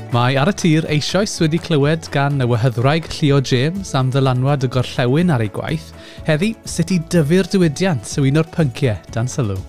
Mae Ar y Tir eisoes wedi clywed gan y wehyddwraig Llio James am ddylanwad y gorllewin ar ei gwaith. Heddi, sut i dyfu'r diwydiant yw un o'r pynciau dan sylw.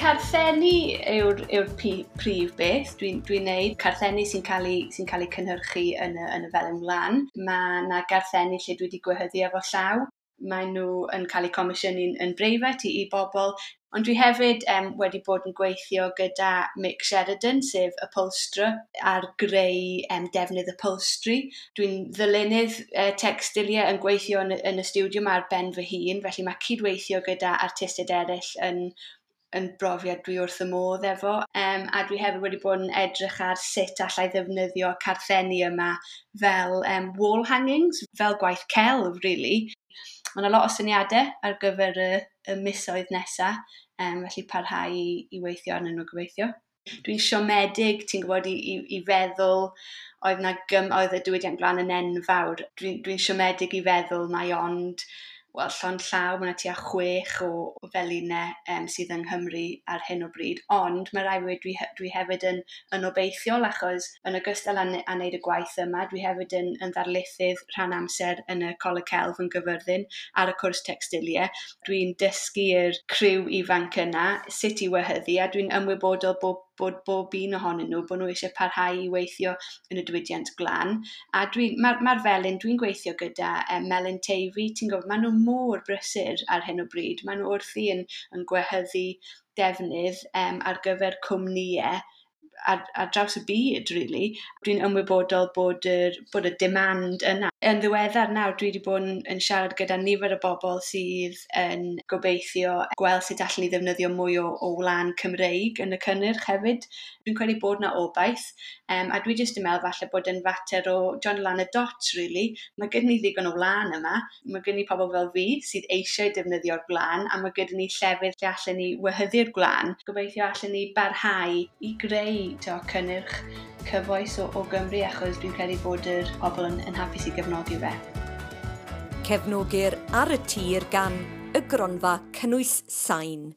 Carthenni yw'r yw prif beth dwi'n dwi neud. Carthenni sy'n cael ei, sy cael ei cynhyrchu yn y Felin Wlân. Mae yna garthenni lle dwi wedi gwehyddu efo llaw. Maen nhw yn cael eu comisiynu'n yn breifat i bobl. Ond dwi hefyd wedi bod yn gweithio gyda Mick Sheridan, sef upholsterer, ar greu defnydd upholstery. Dwi'n ddylunydd textiliau yn gweithio yn y stiwdio yma ar ben fy hun, felly mae cydweithio gyda artistiaid eraill yn brofiad dwi wrth y modd efo. A dwi hefyd wedi bod yn edrych ar sut allai ddefnyddio carthenni yma fel wall hangings, fel gwaith celf, really. Mae yna lot o syniadau ar gyfer y misoedd nesaf, felly parhau i weithio arnyn nhw gobeithio. Dwi'n siomedig, ti'n gwybod, i feddwl oedd y diwydiant gwlân yn enfawr. Dwi'n dwi siomedig i feddwl mai ond, wel, llond llaw, mae yna tua 6 o felinau sydd yng Nghymru ar hyn o bryd. Ond mae rhaid fi dweud, dwi hefyd yn obeithiol, achos yn ogystal â wneud y gwaith yma, dwi hefyd yn ddarlithydd rhan amser yn y Coleg Celf yn Gyfyrddin ar y cwrs textiliau. Dwi'n dysgu'r criw ifanc yna sut i wehyddu, a dwi'n ymwybodol bod bob un ohonyn nhw, bod nhw eisiau parhau i weithio yn y diwydiant gwlân. A mae'r felin, dwi'n gweithio gyda Melin Teifi, ti'n gwybod, maen nhw mor brysur ar hyn o bryd. Maen nhw wrthi yn gwehyddu defnydd ar gyfer cwmnïau ar draws y byd, really. Dwi'n ymwybodol bod y demand yna. Yn ddiweddar nawr, dwi wedi bod yn siarad gyda nifer o bobl sydd yn gobeithio gweld sut allan ni ddefnyddio mwy o wlân Cymreig yn y cynnyrch hefyd. Dwi'n credu bod yna obaith, a dwi jyst yn meddwl falle bod yn fater o join lan y dots, really. Mae gyda ni ddigon o wlân yma, mae gyda ni pobl fel fi sydd eisiau defnyddio'r gwlân, a mae gyda ni llefydd lle allan ni wehyddu'r gwlân. Gobeithio allan ni barhau i greu cynnyrch cyfoes o Gymru, achos dwi'n credu bod yr pobl yn hapus i gefnogi fe. Cefnogir Ar y Tir gan y Gronfa Cynnwys Sain.